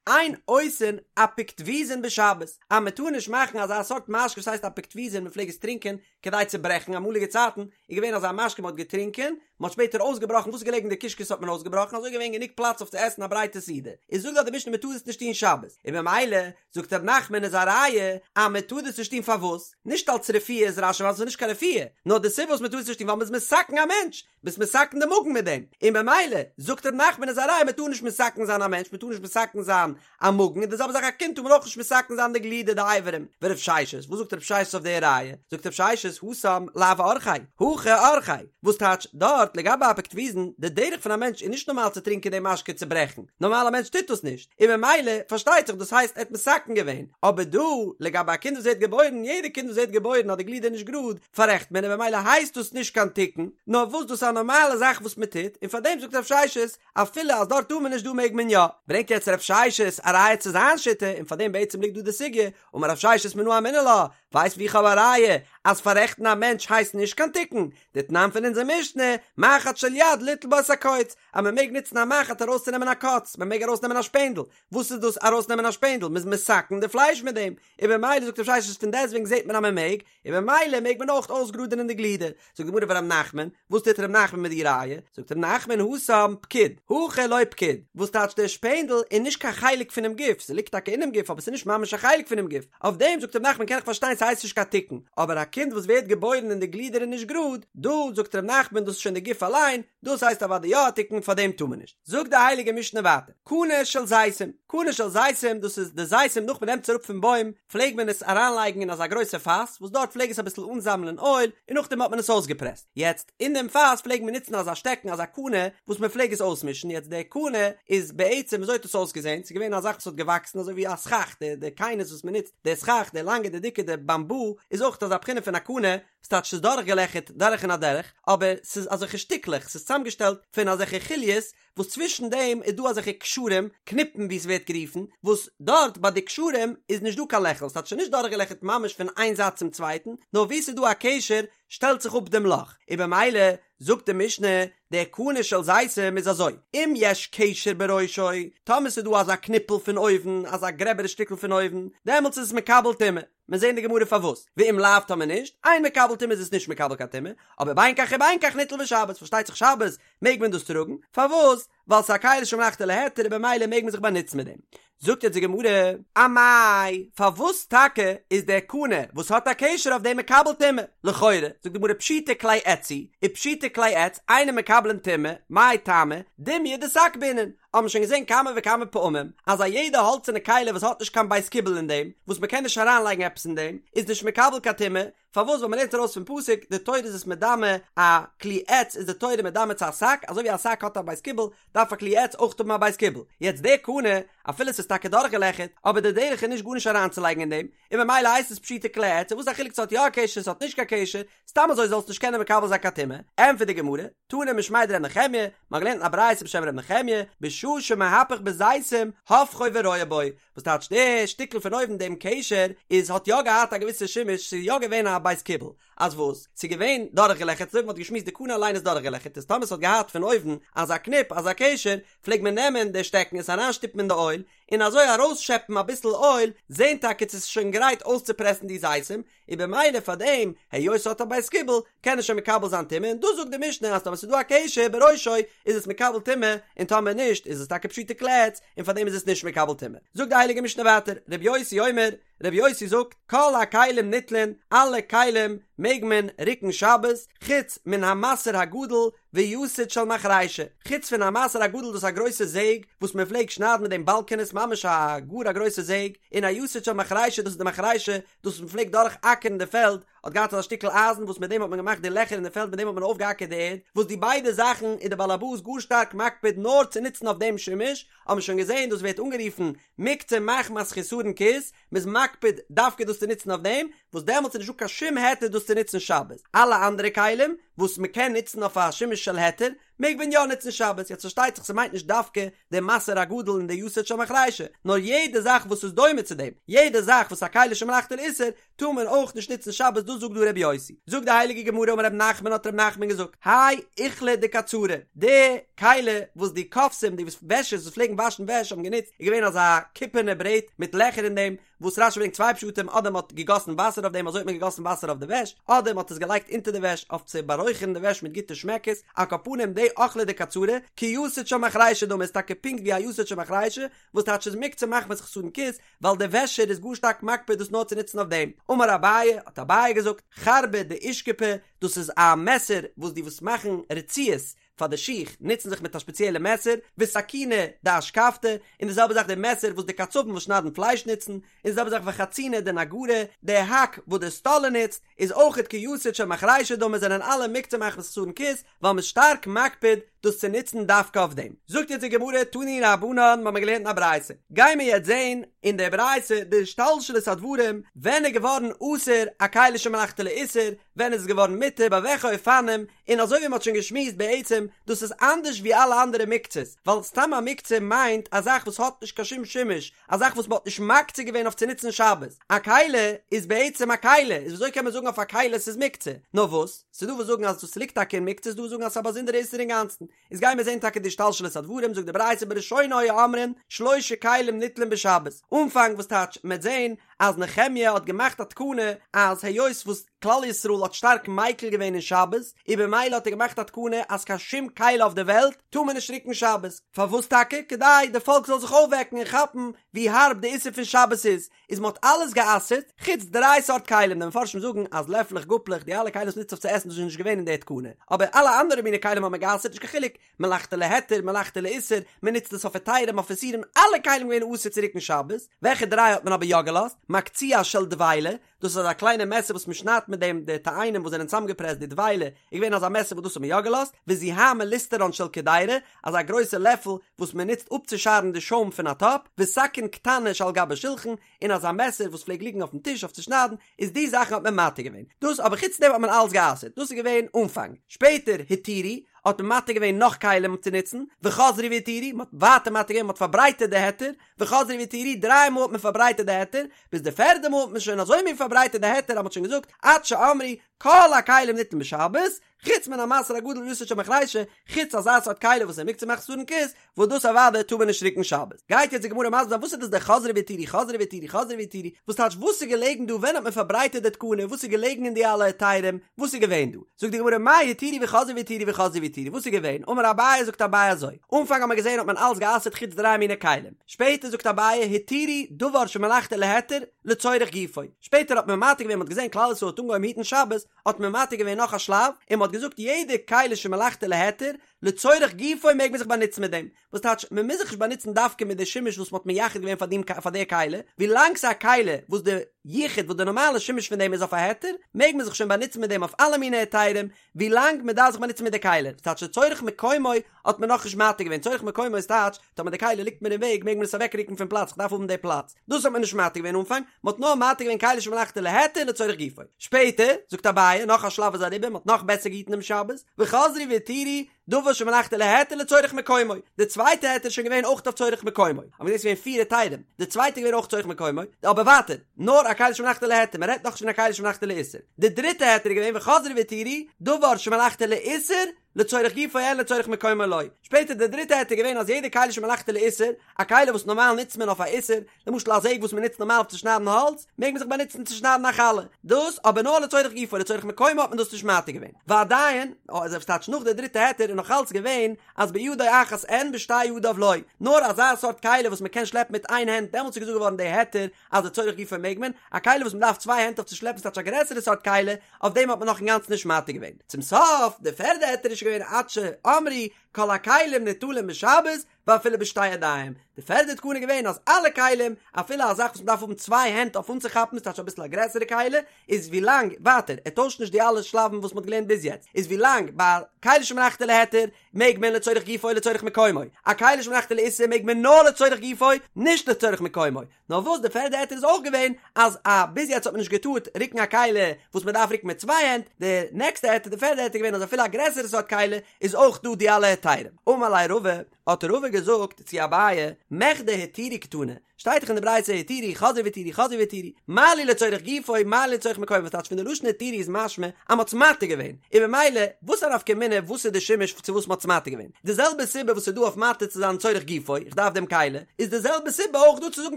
אין עושין אפיקטויזין בשבת, אז מען טאר נישט מאכן אזא סארט משקה וואס הייסט אפיקטויזין, מען פלעג עס טרינקען כדי צו ברעכן, אמאליגע צייטן איז געווען אזא משקה מען האט געטרינקען, מען האט שפעטער אויסגעבראכן וואס איז געלעגן אין די קישקעס האט מען אויסגעבראכן, אזוי איז געווען גענוג פלאץ אויף צו עסן א ברייטע סעודה, איז זאגט דאך די משנה מען טאר עס נישט טון שבת, און במילא זאגט ר' נחמן איז א ראיה אז מען טאר דאס נישט טון פארוואס? נישט אלץ רפואה איז רש"י ווייל עס איז נישט קיין רפואה, נאר די סיבה וואס מען טאר עס נישט טון ווייל מען איז מתקן א מענטש, ביסט מתקן די מאגן מיט דעם, און במילא זאגט ר' נחמן איז א ראיה מען טאר נישט מתקן זיין א מענטש, מען טאר נישט מתקן זיין א מאגן, און די זעלבע זאך א קינד טאר מען אויך נישט מתקן זיין די גלידער די אברים, ורב ששת, וואס זאגט רב ששת אויף די ראיה? זאגט רב ששת התם לאו אורחיה, הכא אורחיה, וואס טייטש דארט לגבי אפיקטויזין, די דרך פון א מענטש איז נישט נארמאל צו טרינקען די משקה צו ברעכן, נארמאל א מענטש טוט דאס נישט, און במילא פארשטייט זיך דאס הייסט ער האט מתקן געווען, אבער דא לגבי א קינד וואס ווערט געבוירן, יעדע קינד וואס ווערט געבוירן האט די גלידער נישט גראד, פאררעכט מען און במילא הייסט דאס נישט קיין תיקון, נאר וואס דאס איז א נארמאלע זאך וואס מען טוט, און פאר דעם זאגט רב ששת, אפילו אז דארט טאר מען נישט דא מעג מען יא. ברענגט יעצט רב ששת א ראיה צו זיין שיטה, און פאר דעם בעצם ליגט דא די סוגיא, אמר רב ששת מנא אמינא לה, ווייסט ווי איך האב א ראיה אז פאררעכטן א מענטש הייסט נישט קיין תיקון, דתנן פון אונזער משנה, מחט של יד ליטול בה את הקוץ, אז מען מעג נוצן א מחט ארויסצונעמען א קוץ, מען מעג ארויסנעמען א שפענדל, וואס איז דאס ארויסנעמען א שפענדל? מען איז מתקן די פלייש מיט דעם, און במילא זאגט רב ששת פון דעסטוועגן זעט מען אז מען מעג, און במילא מעג מען אויך אויסגראדענען די גלידער. זאגט די גמרא ורב נחמן, וואס טוט ר' נחמן מיט די ראיה? זאגט ר' נחמן התם פקיד, הכא לא פקיד, וואס טייטש דער שפענדל איז נישט קיין חלק פונעם גוף, ס'ליגט טאקע אינעם גוף אבער ס'איז נישט ממש א חלק פונעם גוף, אויף דעם זאגט ר' נחמן קען איך פארשטיין ס'הייסט נישט קיין תיקון, אבער א קינד וואס ווערט געבוירן און די גלידער איז נישט גראד, דא זאגט ר' נחמן דאס איז שוין די גוף אליין, דאס הייסט אוודאי יא א תיקון פאר דעם טאר מען נישט. זאגט די הייליגע משנה ווייטער, קנה של זיתים, קנה של זיתים דאס איז די זיתים נאך מען נעמט עס אראפ פון בוים פלעג מען עס אריינלייגן אין אזא גרויסע פאס וואס דארט פלעג עס אביסל אנזאמלען אויל און נאכדעם האט מען עס אויסגעפרעסט, יעצט אין דעם פאס פלעג מען נוצן אזא שטעקן אזא קנה וואס מען פלעג עס אויסמישן, יעצט די קנה איז בעצם וויאזוי האט עס אויסגעזען, ס'איז געווען א זאך וואס האט געוואקסן אזוי ווי א סכך, די די קיינעס וואס מען נוצט, די סכך די לאנגע די דיקע די באמבו איז אויך אזא בחינה פון א קנה, ס'טייטש ס'איז דורכגעלעכערט דורך און אדורך, אבער ס'איז אזעלכע שטיקלעך, ס'איז צוזאמגעשטעלט פון אזעלכע חוליות, וואס צווישן דעם איז דא אזעלכע קשרים, קניפן ווי ס'ווערט גערופן, וואס דארט ביי די קשרים איז נישט דא קיין לעכל, ס'טייטש ס'איז נישט דורכגעלעכערט ממש פון איין זייט צום צווייטן, נאר וואו ס'איז דא א קשר שטעלט זיך אפ דעם לאך, און במילא זאגט די משנה, די קנה של זיתים איז אזוי, אם יש קשר בראשו, טאמער ס'איז דא אזא קניפל פון אויבן, אזא גרעבערע שטיקל פון אויבן, דעמאלטס איז עס מקבל טומאה. מיר זעהן די גמרא פארוואס, ואם לאו טאמער נישט, אין מקבל טומאה איז עס נישט מקבל קיין טומאה, אבער בין כך ובין כך ניטל בשבת, פארשטייט זיך שבת מעג מען דאס טראגן, פארוואס? ווייל ס'איז א כלי שמלאכתו להיתר און במילא מעג מען זיך באנוצן מיט דעם. זאגט יעצט די גמרא, אמאי, פארוואס טאקע איז דער קנה וואס האט א קשר אויף דעם מקבל טומאה? לכאורה, זאגט די גמרא פשיטי כלי עץ הוא, ופשיטי כלי עץ אינן מקבלין טומאה, מאי טעמא, דומיא דשק בעינן, האבן שוין געזען כמה וכמה פעמים אז א יעדע האלצערנע כלי וואס האט נישט קיין בית קיבול אין דעם, וואס מ'קען נישט אריינלייגן עפעס אין דעם, איז נישט מקבל קיין טומאה, פארוואס ווייל מ'לערנט ארויס פון פסוק די תורה איז עס מדמה א כלי עץ איז די תורה מדמה צו א שק, אזוי ווי א שק האט א בית קיבול דארף א כלי עץ אויך האבן א בית קיבול, יעצט די קנה אפילו ס'איז טאקע דורכגעלעכערט אבער די דרך איז נישט גארנישט אריינצולייגן אין דעם, און ממילא הייסט עס פשיטי כלי עץ, און וואס איז א חילוק ס'האט יא א קשר ס'האט נישט קיין קשר, סתם אזוי זאלסט נישט קענען מקבל זיין קיין טומאה, ענטפערט די גמרא, תנא משמיה דר' נחמיה, מ'האט געלערנט אין א ברייתא בשם ר' נחמיה, בשעה שמהפך בזיתים, הופכו ורואה בו, וואס טייטש די שטיקל פון אויבן דעם קשר איז האט יא געהאט א געוויסע שימוש ס'איז יא געווען א בית קיבול, אז וואס? ס'איז געווען דורכגעלעכערט אזוי ווי מ'האט געשמועסט די קנה אליין איז דורכגעלעכערט איז טאמער ס'האט געהאט פון אויבן אזא קניפ אזא קשר פלעגט מען נעמען די שטעקן עס אריינשטופן אין די אויל און אזוי ארויסשעפן אביסל אויל זען טאקע צו ס'איז שוין גרייט אויסצופרעסן די זיתים, און במילא פאר דעם היות ס'האט א בית קיבול קען עס שוין מקבל זיין טומאה און דאס זאגט די משנה אז טאמער ס'איז דא א קשר בראשו איז עס מקבל טומאה און טאמער נישט איז עס טאקע פשיטי כלי עץ און פאר דעם איז עס נישט מקבל טומאה. זאגט די הייליגע משנה ווייטער ר' יוסי אומר ר' יוסי זאגט כל הכלים ניטלין אלע כלים. מעג מען רוקן שבת, חוץ מן המסר הגדול ויתד של מחרישה, חוץ פון א מסר הגדול דאס איז א גרויסע זעג וואס מען פלעגט שניידן מיט דעם באלקענעס ממש א גאר א גרויסע זעג, און א יתד של מחרישה דאס איז די מחרישה דאס וואס מען פלעגט דורך אקערן די פעלד, האט געהאט אזא שטיקל אייזן וואס מיט דעם האט מען געמאכט די לעכער אין די פעלד מיט דעם האט מען אויפגעאקערט די ערד, וואס די ביידע זאכן איז די בעל הבית גאר שטארק מקפיד נאר צו נוצן אויף דעם שימוש, האט מען שוין געזען דאס ווערט אנגערופן מוקצה מחמת חסרון כיס, מ'איז מקפיד דווקא דאס צו נוצן אויף דעם, וואס דעמאלטס איז נישטא קיין שום היתר דאס צו נוצן שבת, אלע אנדערע כלים וואס מ'קען נוצן אויף א שימוש של היתר מעג מען יא נוצן שבת, יעצט פארשטייט זיך ס'מיינט נישט דווקא די מסר הגדול און די יתד של מחרישה, נאר יעדע זאך וואס איז דומה צו דעם, יעדע זאך וואס א כלי שמלאכתו לאיסור, טאר מען אויך נישט נוצן שבת דאס זאגט דא רבי יוסי, זאגט די הייליגע גמרא אמר רב נחמן האט רב נחמן געזאגט, האי אוכלא דקצרי, די כלי וואס די כובסים די וועשערס וואס פלעגן וואשן וועש האבן גענוצט איז געווען אזא קופערנע ברעט מיט לעכער אין דעם, וואס רשי ברענגט צוויי פשטים אדער מען האט געגאסן וואסער אויף דעם אזוי האט מען געגאסן וואסער אויף די וועש, אדער מען האט עס געלייגט אונטער די וועש אויף צו בארויכערן די וועש מיט גוטע שמעקעס, על כל פנים די אוכלא דקצרי, כיתד של מחרישה דמי איז טאקע פונקט ווי א יתד של מחרישה, וואס טייטש איז מוקצה מחמת חסרון כיס, ווייל דער וועשער איז גאר שטארק מקפיד דאס נאר צו נוצן אויף דעם. אמר אביי, האט אביי געזאגט, חרבא דאושכפי, דאס איז א מעסער וואס די וואס מאכן רצועות פאר די שיך נוצן זיך מיט א שפעציעלע מעסער, וסכינא דאשכבתא, און די זעלבע זאך די מעסער וואס די קצבים וואס שניידן פלייש נוצן, און די זעלבע זאך וחצינא דנגרי, די האק וואס די סטאלער נוצט, איז אויכעט כיתד של מחרישה דמי זענען אלע מוקצה מחמת חסרון כיס, ווייל מ'איז שטארק מקפיד דאס צו נוצן דווקא אויף דעם. זאגט יעצט די גמרא תנו רבנן מ'האמיר געלערנט אין א ברייתא, גיימיר יעצט זעהן אין די ברייתא די השתלשלות הדברים ווען איז געווארן אסור א כלי שמלאכתו לאיסור, ווען איז עס געווארן מותר, ביי וועלכע אופנים, און אזוי ווי מ'האט שוין געשמועסט בעצם דאס איז אנדערש ווי אלע אנדערע מוקצות, ווייל סתם א מוקצה מיינט א זאך וואס האט נישט קיין שום שימוש, א זאך וואס מ'האט נישט מקצה געווען אויף צו נוצן שבת, א כלי איז בעצם א כלי, איז וויאזוי קען מען זאגן אויף א כלי ס'איז מוקצה? נאר וואס, ס'איז דא וואס זאגן אז דאס ליגט טאקע אין מוקצה, ס'איז דא וואס זאגן אז ס'איז א באזונדערע איסור אינגאנצן, איז גיימיר זען טאקע די השתלשלות הדברים, זאגט די ברייתא בראשונה היו אומרים שלשה כלים ניטלין בשבת, אנפאנג וואס טייטש מ'עט זען אז נחמיה האט געמאכט א תקנה אז היות וואס כלל ישראל האט שטארק מיקל געווען אין שבת, און במילא האט ער געמאכט א תקנה אז קיין שום כלי אויף די וועלט טאר מען נישט רוקן שבת, פארוואס טאקע? כדי די פאלק זאל זיך אויפוועקן און כאפן ווי הארב די איסור פון שבת איז, איז מען האט אלעס גע'אסר'ט חוץ דריי סארט כלים, די מפרשים זאגן אז לעפלעך גאפלעך די אלע כלים וואס מ'נוצט אויף צו עסן דאס איז נישט געווען אין די תקנה, אבער אלע אנדערע מיני כלים האט מען גע'אסר'ט נישט קיין חילוק מלאכתו להיתר מלאכתו לאיסור, מען נוצט עס אויף היתרים אויף איסורים, אלע כלים געווען אסור צו רוקן שבת, וועלכע דריי האט מען אבער יא געלאזט? מקצוע של דבילה, דאס איז אזא קליינע מעסער וואס מען שניידט מיט דעם די תאנים וואס זענען צוזאמגעפרעסט די דבילה איז געווען אזא מעסער וואס דאס האט מען יא געלאזט, וזוהמא ליסטרן של קדירה, אזא גרויסע לעפל וואס מען נוצט אפצושארן די שוים פון א טאפ, וסכין קטנה שעל גבי שולחן, און אזא מעסער וואס פלעגט ליגן אויפן טיש אויף צו שניידן, איז די זאכן האט מען מתיר געווען, דאס אבער חוץ דעם האט מען אלעס גע'אסר'ט, דאס איז געווען אנפאנג, שפעטער התירו, האט מען מתיר געווען נאך כלים צו נוצן, וחזרו והתירו, מען האט ווייטער מתיר געווען, מען האט פארברייטערט די היתר, וחזרו והתירו, דריי מאל האט מען פארברייטערט די היתר, ביז די פערדע מאל האט מען שוין אזוי מין פארברייטערט די היתר אז מען האט שוין געזאגט עד שאמרו כל הכלים ניטלין בשבת, חוץ מן המסר הגדול ויתד של מחרישה, חוץ אזא סארט כלי וואס איז מוקצה מחמת חסרון כיס, וואס דאס אוודאי טאר מען נישט רוקן שבת. גייט יעצט די גמרא מסביר זיין וואס איז דאס די חזרו והתירו חזרו והתירו חזרו והתירו, וואס טייטש וואס איז געלעגן דא ווען האט מען פארברייטערט די תקנה וואס איז געלעגן אין די אלע היתרים וואס איז געווען דא, זאגט די גמרא מאי התירו וחזרו והתירו וחזרו והתירו וואס איז געווען, אמר אביי זאגט אביי אזוי, אנפאנג האט מען געזען האט מען אלעס גע'אסר'ט חוץ דריי מיני כלים, שפעטער זאגט אביי התירו דבר שמלאכתו להיתר לצורך גופו, שפעטער האט מען מתיר געווען מען האט געזען כלל ישראל האט אנגעהויבן היטן שבת האט מען מתיר געווען נאך א שלב און מען האט געזאגט יעדע כלי שמלאכתו להיתר לצורך גופו מעג מען זיך באנוצן מיט דעם, וואס טייטש מען מוז זיך נישט באנוצן דווקא מיט די שימוש וואס מען האט מייחד געווען פאר דעם פאר די כלי, ווילאנג ס'איז א כלי וואס די יחוד וואס די נארמאלע שימוש פון דעם איז אויף א היתר, מעג מען זיך שוין באנוצן מיט דעם אויף אלע מיני היתרים, ווילאנג מען דארף זיך באנוצן מיט די כלי, וואס טייטש לצורך מקומו האט מען נאכנישט מתיר געווען, צורך מקומו איז טייטש טאמער די כלי ליגט מיר אין וועג מעג מען עס אוועקרוקן פון פלאץ איך דארף האבן די פלאץ, דאס האט מען נישט מתיר געווען אנפאנג, מען האט נאר מתיר געווען כלי שמלאכתו להיתר לצורך גופו. שפעטער, זאגט אביי, נאך א שלב איז אריבער, מען האט נאך בעסער געהיטן דעם שבת, וחזרו והתירו, דבר שמלאכתו להיתר לצורך מקומו, די צווייטע היתר איז שוין געווען אויך אויף צורך מקומו, אבער דאס איז געווען פיר היתרים, די צווייטע איז געווען אויך צורך מקומו, אבער ווייטער, נאר א כלי שמלאכתו להיתר, מען רעדט נאכנישט פון א כלי שמלאכתו לאיסור. די דריטע היתר איז געווען וחזרו והתירו, דבר שמלאכתו לאיסור, לצורך גופו אין לצורך מקומו לא. שפעטער די דריטע היתר איז געווען אז יעדע כלי שמלאכתו לאיסור, א כלי וואס נארמאל נוצט מען אויף א איסור, למשל א זעג וואס מען נוצט נארמאל אויף צו שניידן האלץ, מעג מען זיך באנוצן צו שניידן א חלה. דאס אבער נאר לצורך גופו, לצורך מקומו האט מען דאס נישט מתיר געווען. ועדיין, אזוי וואס טייטש נאך די דריטע היתר איז נאך. נאך אלץ געווען אז בידו אחת אין בשתי ידיו לא, נאר אזא סארט כלי וואס מען קען שלעפן מיט איין הענט דעמאלטס איז געזאגט געווארן די היתר אז לצורך גופו מעג מען, א כלי וואס מען דארף צוויי הענט אויף צו שלעפן ס'טייטש א גרעסערע סארט כלי, אויף דעם האט מען נאך אינגאנצן נישט מתיר געווען. צום סוף, די פערדע היתר איז שוין געווען עד שאמרו כל הכלים ניטלים בשבת ואפילו בשתי ידיים, די פערדע תקנה איז געווען אז אלע כלים, אפילו א זאך וואס מען דארף האבן צוויי הענט אויף אנצוכאפן ס'טייטש אביסל א גרעסערע כלי, איז ווילאנג, ווייטער, ער טוישט נישט די אלע שלבים וואס מען האט געלערנט ביז יעצט, איז ווילאנג ביי כלי שמלאכתו להיתר מעג מען לצורך גופו לצורך מקומו, א כלי שמלאכתו לאיסור מעג מען נאר לצורך גופו, נישט לצורך מקומו, נאר וואס די פערדע היתר איז אויך געווען אז א ביז יעצט האט מען נישט געטארט רוקן א כלי וואס מען דארף רוקן מיט צוויי הענט, די נעקסטע היתר די פערדע היתר איז געווען אז אפילו א גרעסערע סארט כלי איז אויך דא די אלע היתרים. אמר ליה רבא, האט רבא געזאגט צו אביי, מכדי התירו קתני, שטייט דאך אין די ברייתא התירו חזרו והתירו חזרו והתירו, מה לי לצורך גופו מה לי לצורך מקומו וואס טייטש פון די לשון התירו איז משמע אז מ'האט עס מתיר געווען, און ממילא וואס א נפקא מינה וואס איז די שימוש צו וואס מ'האט עס מתיר געווען, די זעלבע סיבה וואס איז דא אויף מתיר צו זיין צורך גופו, איך דארף דעם כלי, איז די זעלבע סיבה אויך דא צו זאגן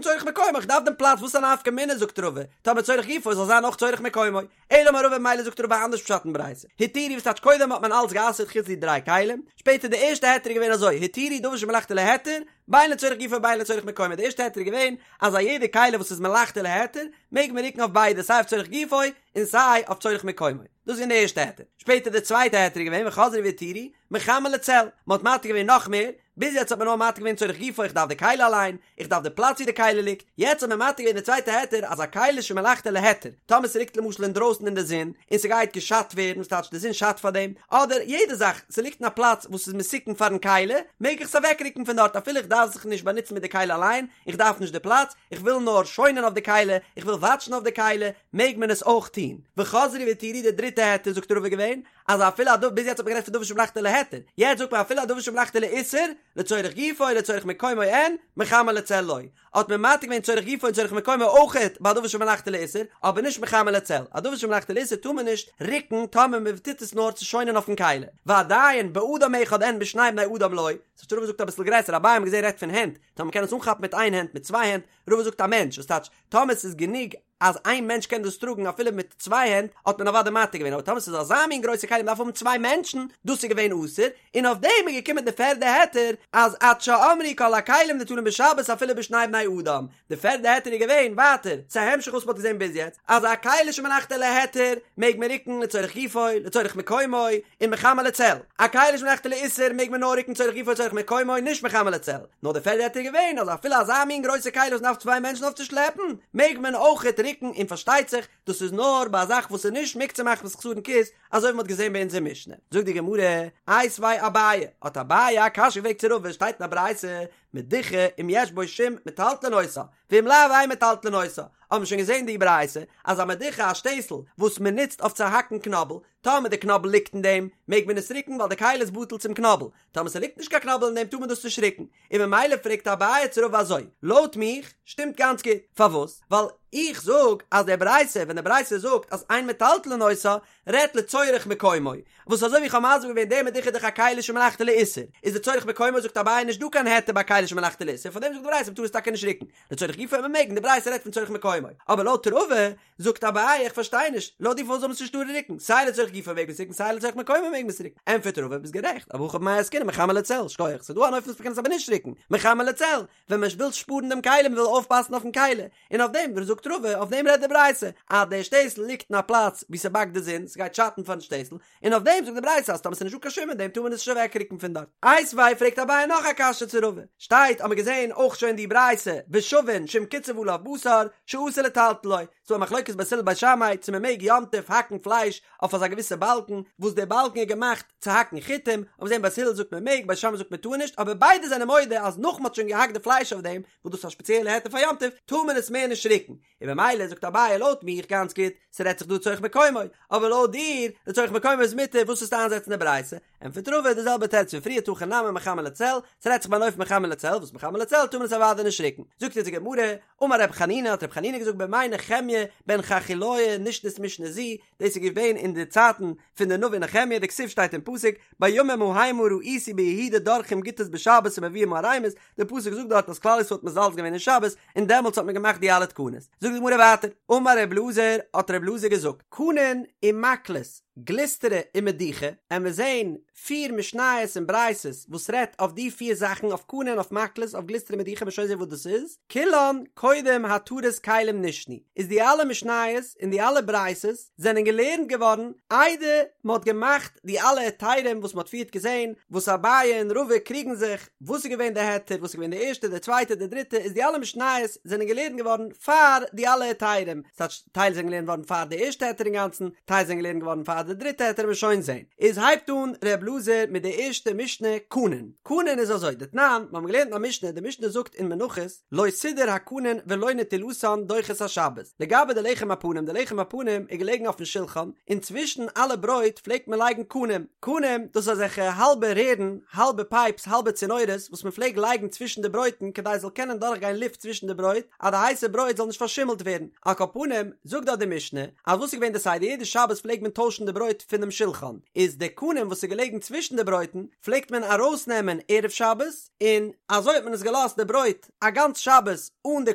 צורך מקומו, איך דארף דעם פלאץ, וואס א נפקא מינה זאגט רבא, טאמער צורך גופו זאל זיין אויך צורך מקומו, אלא אמר רבא ממילא זאגט רבא אנדערש פשט אין ברייתא, התירו וואס טייטש קודם האט מען אלץ גע'אסר'ט חוץ די דריי כלים, שפעטער די ערשטע היתר איז געווען אזוי, התירו דבר שמלאכתו להיתר, בין לצורך גופו בין לצורך מקומו, די ערשטע היתר איז געווען אז א יעדע כלי וואס איז מלאכתו להיתר מעג מען רוקן אויף ביידע סיי אויף צורך גופו און סיי אויף צורך מקומו, דאס איז געווען די ערשטע היתר, שפעטער די צווייטע היתר איז געווען וחזרו והתירו מחמה לצל, מען האט מתיר געווען נאך מער, ביז יעצט האט מען נאר מתיר געווען צורך גופו איך דארף די כלי אליין, איך דארף די פלאץ ווי די כלי ליגט, יעצט האט מען מתיר געווען די צווייטע היתר אז א כלי שמלאכתו להיתר, טאמער ס'ליגט למשל אינדרויסן אין די זון און ס'גייט געשאדט ווערן, וואס טייטש די זון שאדט פאר דעם, אדער יעדע זאך, ס'ליגט אין א פלאץ וואס איז מסוכן פארן כלי, מעג איך עס אוועקרוקן פון דארט אפילו איך דארף זיך נישט באנוצן מיט די כלי אליין, איך דארף נישט די פלאץ, איך וויל נאר שוינען אויף די כלי, איך וויל וואטשן אויף די כלי, מעג מען עס אויך טון. וחזרו והתירו די דריטע היתר זאגט רבא געווען, אז אפילו א דבר, ביז יעצט האט מען גערעדט פון דבר שמלאכתו להיתר, יעצט זאגט מען אפילו א דבר שמלאכתו לאיסור, לצורך גופו לצורך מקומו אין, מחמה לצל לא. האט מען מתיר געווען צורך גופו און צורך מקומו אויכעט ביי א דבר שמלאכתו לאיסור, אבער נישט מחמה לצל. א דבר שמלאכתו לאיסור טאר מען נישט רוקן טאמער מען טוט עס נאר צו שוינען אויפן כלי. ועדיין באדם אחד אין בשני בני אדם לא. ס'הייסט רבא זאגט אביסל גרעסער, אביי האט מען געזען רעדט פון הענט, טאמער מ'קען עס אנכאפן מיט איין הענט מיט צוויי הענט, רבא זאגט א מענטש, וואס טייטש טאמער ס'איז גענוג אז איין מענטש קען דאס טראגן אפילו מיט צוויי הענט האט מען אוודאי מתיר געווען אבער טאמער ס'איז אזא מין גרויסע כלי מ'דארף האבן צוויי מענטשן דאס איז געווען אסור און אויף דעם איז געקומען די פערדע היתר אז עד שאמרו כל הכלים ניטלין בשבת אפילו בשני בני אדם די פערדע היתר איז געווען ווייטער ס'איז א המשך וואס מ'האט געזען ביז יעצט אז א כלי שמלאכתו להיתר מעג מען רוקן לצורך גופו לצורך מקומו און מחמה לצל א כלי שמלאכתו לאיסור מעג מען נאר רוקן צורך גופו לצורך מקומו נישט מחמה לצל נאר די פערדע היתר איז געווען אז אפילו אזא מין גרויסע כלי וואס מ'דארף צוויי מענטשן אויף צו שלעפן מעג מען אויכעט רוקן און פארשטייט זיך דאס איז נאר ביי א זאך וואס איז נישט מוקצה מחמת חסרון כיס אזוי ווי מ'האט געזען ביי אונזער משנה זאגט די גמרא איתיביה אביי האט אביי א קשיא געפרעגט צו רבא שטייט אין א ברייתא מדוכה אם יש בו שום מטלטלין אותה ואם לאו אין מטלטלין אותה האט מען שוין געזען די ברייתא אז א מדוכה א שטעסל וואס מ'נוצט אויף צו האקן קנאבל טאמער די קנאבל ליגט אין דעם, מעג מען עס רוקן ווייל די כלי איז בטל צום קנאבל, טאמער ס'ליגט נישט קיין קנאבל אין דעם טאר מען דאס נישט רוקן, און ממילא פרעגט אביי צו רבא אזוי, לויט מיך שטימט גאנץ גוט, פארוואס? ווייל איך זאג אז די ברייתא ווען די ברייתא זאגט אז אין מטלטלין אותה רעדט לצורך מקומו, וואס אזוי ווי איך האב מסביר געווען די מדוכה איז דאך א כלי שמלאכתו לאיסור, איז לצורך מקומו זאגט אביי נישט דא קיין היתר ביי כלי שמלאכתו לאיסור, פארדעם זאגט די ברייתא מ'טאר עס טאקע נישט רוקן, לצורך גופו מעג מען, די ברייתא רעדט פון צורך מקומו, אבער לויט רבא זאגט אביי איך פארשטיי נישט, לויט דיר פארוואס זאל מען עס נישט טארן רוקן, סיי לצורך גופו מעג מען עס רוקן סיי לצורך מקומו מעג מען עס רוקן, ענטפערט רבא ביסט גערעכט, אבער הכא במאי עסקינן מחמה לצל, שכוח, ס'איז דא אן אופן וואס מ'קען עס אבער נישט רוקן, מחמה לצל, ווען מען וויל שפארן דעם כלי, מען וויל אויפפאסן אויפן כלי, און אויף דעם זאגט רבא, אויף דעם רעדט די ברייתא, אז דער שטעסל ליגט אין א פלאץ וואו ס'באקט די זון, ס'גייט שאטן פארן שטעסל, און אויף דעם זאגט די ברייתא אז טאמער ס'איז נישטא קיין שום אין דעם טאר מען עס נישט אוועקרוקן פון דארט. איתיביה פרעגט אביי נאך א קשיא צו רבא, שטייט האט מען געזען אויך שוין די ברייתא ושבין שאם קצף עליו בשר שאסור לטלטלו, ס'דא א מחלוקת בית הלל בית שמאי צו מ'מעג יום טוב האקן פלייש אויף אזא געוויסע באלקן וואס דער באלקן איז געמאכט צו האקן חיטים, האט מען געזען בית הלל זאגט מ'מעג בית שמאי זאגט מ'טאר נישט, אבער ביידע זענען מודה אז נאך מ'האט שוין געהאקט די פלייש אויף דעם, וואס דאס איז א שפעציעלע היתר פאר יום טוב, טאר מען עס מער נישט רוקן, און במילא זאגט אביי לויט מיך גאנץ גוט, ס'רעדט זיך דא לצורך מקומו, אבער לויט דיר, לצורך מקומו איז מותר, וואס וועסטו איינזעצן די ברייתא? ענטפערט רבא די זעלבע תירוץ פון פריער הכא נמי מחמה לצל, ס'רעדט זיך ביי אן אופן מחמה לצל, וואס מחמה לצל טאר מען עס אוודאי נישט רוקן. זאגט אונז די גמרא, אמר ר' חנינא האט ר' חנינא געזאגט בימי נחמיה בן חכליה נשנית משנה זו, דאס איז געווען אין די צייטן פון די נביא נחמיה, דכתיב שטייט אין פסוק, בימים ההמה ראיתי ביהודה דורכים גתות בשבת ומביאים ערימות, די פסוק זאגט דארט אז כלל ישראל האט מזלזל געווען אין שבת, און דעמאלטס האט מען געמאכט די אלע תקנות. זאגט די גמרא ווייטער, אמר ר' אלעזר, האט ר' אלעזר געזאגט, קנין ומקלות. גלוסטרא ומדוכה, עמיר זעהן פיר משניות און ברייתות וואס רעדט אויף די פיר זאכן אויף קנה און אויף מקלות אויף גלוסטרא ומדוכה מ'עט שוין זעהן וואס דאס איז, כולן קודם התרת כלים נשנו, איז די אלע משניות און די אלע ברייתות זענען געלערנט געווארן איידער מען האט געמאכט די אלע היתרים וואס מען האט פריערט געזעהן וואס אביי און רבא קריגן זיך וואס איז געווען די היתר וואס איז געווען די ערשטע די צווייטע די דריטע איז די אלע משניות זענען געלערנט געווארן פאר די אלע היתרים ס'טייטש טייל זענען געלערנט געווארן פאר די ערשטע היתר אינגאנצן טייל זענען געלערנט געווארן פאר די דריטע היתר מ'עט שוין זעהן איז הייבט אן ר' אלעזר מיט די ערשטע משנה קנין קנין איז אזוי דתנן מיר האבן געלערנט אין א משנה די משנה זאגט אין מנחות לא סידר הקנין ולא נטילתן דוחה את השבת לגבי די לחם הפנים די לחם הפנים איז געלעגן אויפן שולחן און צווישן אלע ברויט פלעגט מען לייגן קנים קנים דאס איז אזעלכע האלבע רערן האלבע פייפס האלבע צינורות וואס מען פלעגט לייגן צווישן די ברויטן כדי עס זאל קענען דורכגיין לופט צווישן די ברויט אז די הייסע ברויט זאל נישט פארשימלט ווערן על כל פנים זאגט דארט די משנה אז וואס איז געווען די סדר יעדע שבת פלעגט מען טוישן די ברויט פונעם שולחן איז די קנים וואס איז געלעגן צווישן די ברויטן פלעגט מען ארויסנעמען ערב שבת און אזוי האט מען עס געלאזט די ברויט א גאנץ שבת אן די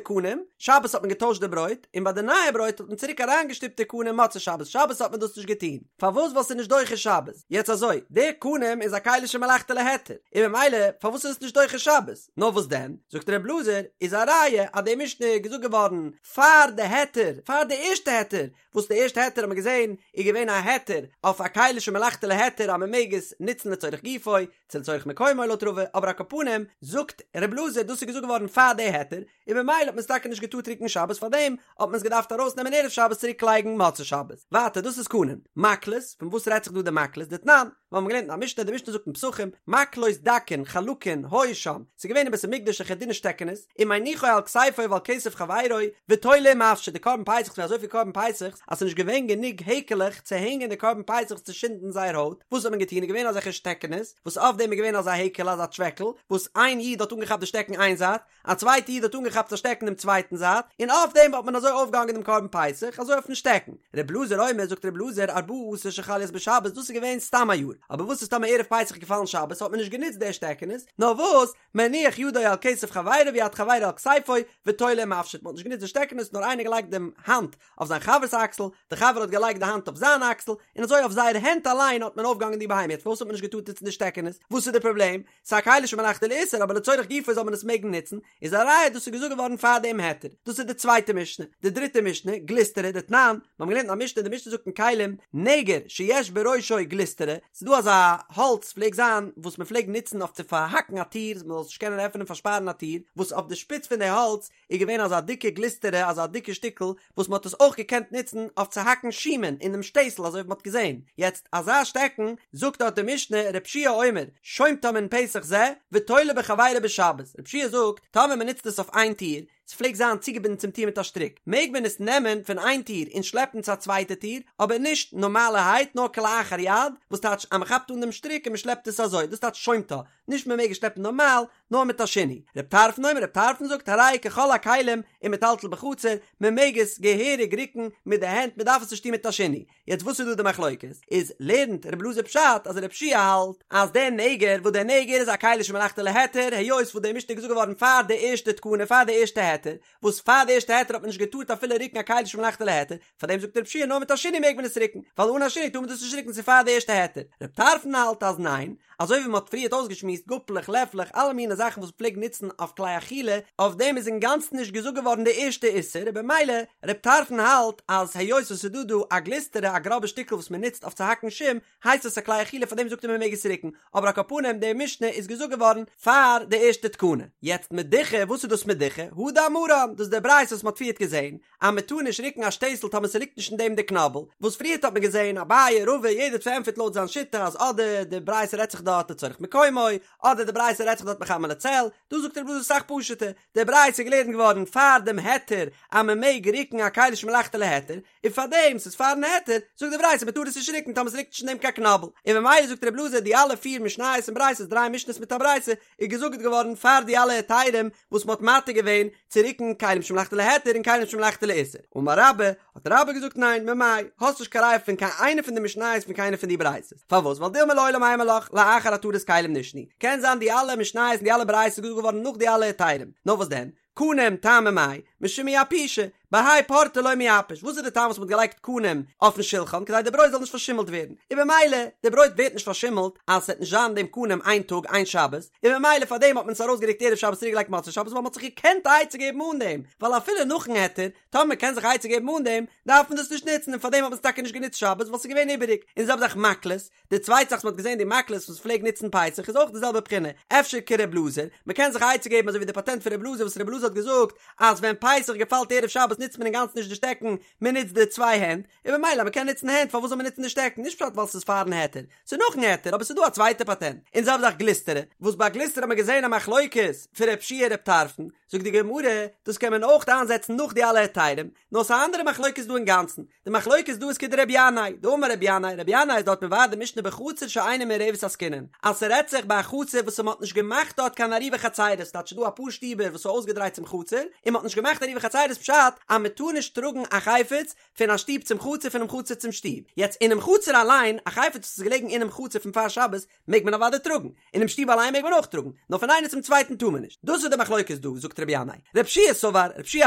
קנים, שבת האט מען געטוישט די ברויט, און ביי די נייע ברויט האט מען צוריק אריינגעשטופט די קנים מוצאי שבת, שבת האט מען דאס נישט געטון, פארוואס ווייל ס'איז נישט דוחה שבת, יעצט אזוי, די קנים איז א כלי שמלאכתו להיתר, און ממילא פארוואס איז עס נישט דוחה שבת, נאר וואס דען, זאגט ר' אלעזר, איז א ראיה אז די משנה איז געזאגט געווארן פאר די היתר, פאר די ערשטע היתר, וואס די ערשטע היתר האט מען געזען איז געווען א היתר אויף א כלי שמלאכתו להיתר אז מען מעג עס נוצן לצורך גופו, צו לצורך מקומו לויט רבא, אבער על כל פנים זאגט ר' אלעזר דאס איז געזאגט געווארן פאר די היתר, און ממילא האט מען עס טאקע נישט געטארט רוקן שבת פארדעם האט מען עס געדארפט ארויסנעמען ערב שבת צוריק לייגן מוצאי שבת. ווייטער דאס איז קנים. מקלות, פון וואס רעדט זיך דא די מקלות? דתנן, מיר האבן געלערנט אין א משנה, די משנה זאגט אין פסחים, מקלות דקין חלקין היו שם, ס'איז געווען אין בית המקדש אזעלכע דינע שטעקענעס, ומניחו על כתפו ועל כתף חברו, ותולה ומפשיט, די קרבן פסח ס'איז געווען אזויפיל קרבן פסח'ס, אז ס'איז נישט געווען גענוג העקעלעך צו הענגען די קרבן פסח'ס צו שינדן זייער הויט, וואס האט מען געטון, איז געווען אזעלכע שטעקענעס, וואס אויף דעם איז געווען אזא העקעלע אזא טשוועקל, וואס איין איד האט אנגעכאפט די שטעקן איין זייט, א צווייטע איד האט אנגעכאפט א שטעקן דעם צווייטן זייט, און אויף דעם האט מען אזוי אויפגעהאנגען דעם קרבן פסח, אזוי אויפן שטעקן. ר' אלעזר אומר, זאגט ר' אלעזר, ארבעה עשר שחל להיות בשבת, דאס איז געווען סתם א יאר, אבער וואס איז טאמער ערב פסח געפאלן שבת, האט מען נישט גענוצט די שטעקענעס, נאר וואס, מניח ידו על כתף חברו ויד חברו על כתפו, ותולה ומפשיט, מען האט נישט גענוצט די שטעקענעס נאר איינער געלייגט דעם האנט אויף זיין חבר'ס אקסל, די חבר האט געלייגט די האנט אויף זיין אקסל, און אזוי אויף זייער הענט אליין האט מען אויפגעהאנגען די בהמה, יעצט פארוואס האט מען נישט געטארט נוצן די שטעקענעס, וואס איז די פראבלעם? ס'איז א כלי שמלאכתו לאיסור אבער לצורך גופו זאל מען עס מעגן נוצן, איז א ראיה דאס איז געזאגט געווארן פאר דעם היתר, דאס איז די צווייטע משנה, די דריטע משנה, גלוסטרא, דתנן, מיר האבן געלערנט אין א משנה, די משנה זאגט אין כלים, נגר שיש בראשו גלוסטרא, ס'איז דא אזא האלץ פלעג זיין וואס מען פלעג נוצן אויף צו פארהאקן א טיר, מען זאל נישט קענען עפענען פארשפארן א טיר, וואס אויף די שפיץ פון די האלץ איז געווען אזא דיקע גלוסטרא אזא דיקע שטיקל וואס מען האט עס אויך געקענט נוצן אויף צו האקן שומן אינעם שטעסל אזוי ווי מען האט געזען יעצט אזא שטעקן, זאגט דארט די משנה ר' יהושע אומר שומטה מן פתח זה ותולה בחבירו בשבת, ר' יהושע זאגט טאמער מען נוצט עס אויף איין טיר, ס'פלעגט זיין צוגעבינדן צום טיר מיט א שטריק, מעג מען עס נעמען פון איין טיר און שלעפן צו א צווייטע טיר, אבער נישט נארמאלערהייט נאר כלאחר יד, וואס טייטש אז מען כאפט אן דעם שטריק און מען שלעפט עס אזוי, דאס טייטש שומטה, נישט מען מעג עס שלעפן נארמאל, נאר מיט א שינוי. רב טרפון אומר, רב טרפון זאגט הרי ככל הכלים ומטלטל בחצר, מען מעג עס געהעריג רוקן מיט די הענט, מען דארף עס נישט טון מיט א שינוי. יעצט וואס איז דא די מחלוקת? איז לערנט רב אלעזר פשט אז ר' יהושע האלט אז דער נגר וואס דער נגר איז א כלי שמלאכתו להיתר היות וואס די משנה איז געזאגט געווארן פאר די ערשטע תקנה פאר די ערשטע היתר וואס פאר די ערשטע היתר האט מען נישט געטארט אפילו רוקן א כלי שמלאכתו להיתר פאר דעם זאגט ר' יהושע נאר מיט א שינוי מעג מען עס רוקן ווייל אן א שינוי טאר מען דאס נישט רוקן ס'איז פאר די ערשטע היתר רב טרפון האלט אז ניין אזוי ווי מען האט פריערט אויסגעשמועסט גאפלעך לעפלעך אלע מיני זאכן וואס מ'פלעגט נוצן אויף כלי אכילה אויף דעם איז אינגאנצן נישט געזאגט געווארן די ערשטע איסור און במילא רב טרפון האלט אז היות עס איז דא דא א גלוסטרא א גראבע שטיקל וואס מען נוצט אויף צו האקן שום הייסט עס א כלי אכילה פאר דעם זאגט ער מען מעג עס רוקן אבער על כל פנים די משנה איז געזאגט געווארן פאר די ערשטע תקנה יעצט מדוכה וואס איז דאס מדוכה הא דאמרן דאס איז די ברייתא וואס מען האט פריערט געזען אז מען טאר נישט רוקן א שטעסל טאמער ס'ליגט נישט אין דעם די קנאבל, וואס פריערט האט מען געזען אביי רבא יעדער האט פארענטפערט לויט זיין שיטה אז אדער די ברייתא רעדט זיך דארט לצורך מקומו, אדער די ברייתא רעדט זיך דארט מחמה לצל, דא זאגט ר' אלעזר אסאך פשוט'ער, די ברייתא איז געלערנט געווארן פאר דעם היתר אז מען מעג רוקן א כלי שמלאכתו להיתר, און פאר דעם ס'איז פארן היתר, זאגט די ברייתא מען טאר עס נישט רוקן טאמער ס'ליגט נישט אין דעם קיין קנאבל, און ממילא זאגט ר' אלעזר די אלע פיר משניות און ברייתות דריי משניות מיט א ברייתא איז געזאגט געווארן פאר די אלע היתרים וואס מ'האט מתיר געווען צו רוקן כלים שמלאכתו להיתר און כלים שמלאכתו לאיסור. אמר רבה, האט רבה געזאגט ניין, ממאי, האסט נישט קיין ראיה פון קיין איינע פון די משניות פון קיינע פון די ברייתות. פארוואס? ווייל דילמא לעולם אימא לך, לאחר התרת כלים נשנו. קען זיין די אלע משניות און די אלע ברייתות איז געזאגט געווארן נאך די אלע היתרים. נאר וואס דען? קנים טעמא מאי? משום מיעפושי, בהאי פורתא לא מיעפש, וואס איז די טעם וואס מ'האט געלייגט קנים אויפן שולחן כדי די ברויט זאל נישט פארשימלט ווערן, און במילא די ברויט ווערט נישט פארשימלט אז ס'וועט נישט זיין דעם קנים איין טאג איין שבת, און במילא פאר דעם האט מען עס ארויסגערוקט ערב שבת צוריק געלייגט מוצאי שבת ווייל מ'האט זיך געקענט א עצה געבן אן דעם, ווייל אפילו נאכן היתר, טאמער מ'קען זיך א עצה געבן אן דעם, דארף מען דאס נישט נוצן און פאר דעם האט מען עס טאקע נישט גענוצט שבת ווייל ס'איז געווען איבעריג, און די זעלבע זאך מקלות, די צווייטע זאך וואס מ'האט געזען די מקלות וואס מ'פלעגט נוצן פסח איז אויך די זעלבע בחינה, אפשר כר' אלעזר, מ'קען זיך א עצה געבן אזוי ווי די פאטענט פון ר' אלעזר וואס ר' אלעזר האט געזאגט אז ווען פסח געפאלט ערב שבת נוצט מען אינגאנצן נישט די שטעקן, מ'נוצט די צוויי הענט, און במילא אז מ'קען נוצן הענט פארוואס זאל מען נוצן די שטעקן, נישט פשט ווייל ס'איז פארן היתר, ס'איז נאכן היתר אבער ס'איז דא א צווייטע פאטענט, און די זעלבע זאך גלוסטרא, וואס ביי גלוסטרא האט מען געזען א מחלוקת פון ר' יהושע ר' טרפון, זאגט די גמרא, דאס קען מען אויך איינזעצן נאך די אלע היתרים, נאר ס'איז א אנדערע מחלוקת דא אינגאנצן, די מחלוקת דא איז כדרבי ינאי, דאמר רבי ינאי, רבי ינאי איז דארט מבאר די משנה בחצר שאינה מעורבת עסקינן, אז ס'רעדט זיך ביי א חצר וואס מ'האט נישט געמאכט דארט קיין עירובי חצירות, ס'טייטש ס'דא אפאר שטיבער וואס איז אויסגעדרייט צום חצר, און מ'האט נישט געמאכט עירובי חצירות פשט אז מ'טאר נישט טראגן א חפץ פון א שטוב צום חצר פונעם חצר צום שטוב, יעצט אינעם חצר אליין, א חפץ וואס איז געלעגן אינעם חצר פון פאר שבת, מעג מען אוודאי טראגן, אינעם שטוב אליין מעג מען אויך טראגן, נאר פון איינער צום צווייטן טאר מען נישט. דאס איז די מחלוקת דא, זאגט רבי ינאי. רבי יהושע סבר, רבי יהושע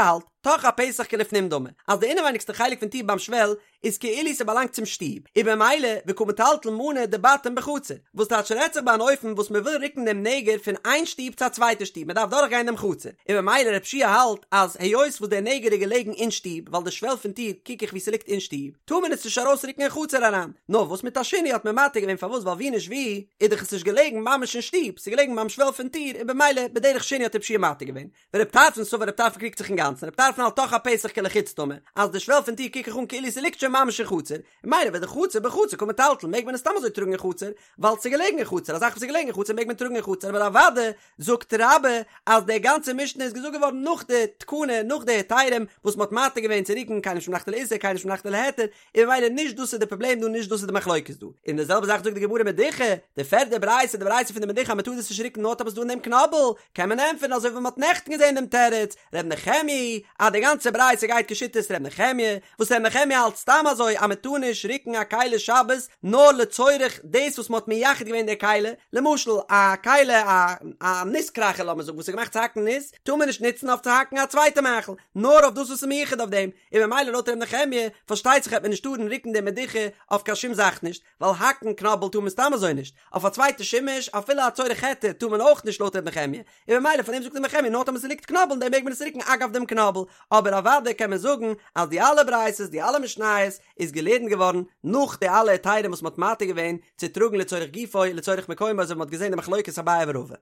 האלט, תוך הפתח כלפנים דמי, אז די אינעווייניגסטע חלק פון טיר ביים שוועל איז כאילו ס'באלאנגט צום שטוב, און במילא וקא מטלטל מנא דבתים בחצר, וואס טייטש רעדט זיך ביי אן אופן וואס מ'וויל רוקן דעם נגר פון איין שטוב צו א צווייטע שטוב, מ'דארף דורכגיין דעם חצר, און במילא רבי יהושע האלט אז היות וואס דער נגר איז געלעגן אין שטוב, ווייל די שוועל פון טיר קוק איך ווי ס'ליגט אין שטוב, טאר מען עס נישט ארויסרוקן אין חצר אריין. נאר וואס מיט א שינוי האט מען מתיר געווען פארוואס ווייל ווי נישט ווי איז דאך עס נישט געלעגן ממש אין שטוב ס'איז געלעגן ביים שוועל פון טיר און במילא בדרך שינוי האט רבי יהושע מתיר געווען ורבי טרפון סבר רבי טרפון קריגט זיך אינגאנצן רבי טרפון האלט תוך הפתח כלחוץ דמי אז די שוועל פון טיר קוק איך אן כאילו ס'ליגט שוין ממש אין חצר און ממילא ודחצר בחצר קא מטלטל מעג מען עס סתם אזוי טראגן אין חצר ווייל ס'איז געלעגן אין חצר א זאך וואס איז געלעגן אין חצר מעג מען טראגן אין חצר אבער אוודאי זאגט רבה אז די גאנצע משנה איז געזאגט געווארן נאך די תקנה נאך די היתרים וואס מ'האט מתיר געווען צו רוקן כלים שמלאכתו לאיסור כלים שמלאכתו להיתר און ממילא נישט דאס איז די פראבלעם דא נישט דאס איז די מחלוקת דא און די זעלבע זאך זאגט די גמרא מדוכה די פערדע ברייתא די ברייתא פון די מדוכה אז מ'טאר דאס נישט רוקן נאר טאמער ס'איז דא אין דעם קנאבל קען מען ענטפערן אזוי ווי מ'האט נעכטן געזען דעם תירוץ ר' נחמיה אז די גאנצע ברייתא גייט כשיטת ר' נחמיה וואס ר' נחמיה האלט סתם אזוי אז מ'טאר נישט רוקן א כלי שבת נאר לצורך דאס וואס מ'האט מייחד געווען די כלי, למשל א כלי א א ניס קראכער לאמיר זאגן וואס איז געמאכט צו האקן ניס, טאר מען נישט נוצן אויף צו האקן א צווייטע מאכל, נאר אויף דאס וואס איז מיוחד אויף דעם, און ממילא לויט ר' נחמיה פארשטייט זיך העט מען נישט טארן רוקן די מדוכה אויף קיין שום זאך נישט, ווייל האקן קנאבל טאר מען סתם אזוי נישט, אויף א צווייטע שימוש אפילו א צורך היתר טאר מען אויך נישט לויט ר' נחמיה, און ממילא פאר דעם זאגט ר' נחמיה נאר טאמער ס'ליגט קנאבל אין דעם מעג מען עס רוקן אגב דעם קנאבל, אבער אוודאי קען מען זאגן אז די אלע ברייתות די אלע משניות איז געלערנט געווארן נאך די אלע היתרים וואס מ'האט מתיר געווען צו טראגן לצורך גופו לצורך מקומו אזוי ווי מ'האט געזען די מחלוקת אביי ורבא.